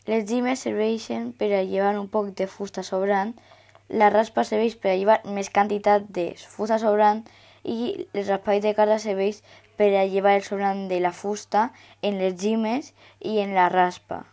Les llimes serveixen per a llevar un poc de fusta sobrant, la raspa serveix per a llevar més quantitat de fusta sobrant i el raspall de carda serveix per a llevar el sobrant de la fusta en les llimes i en la raspa.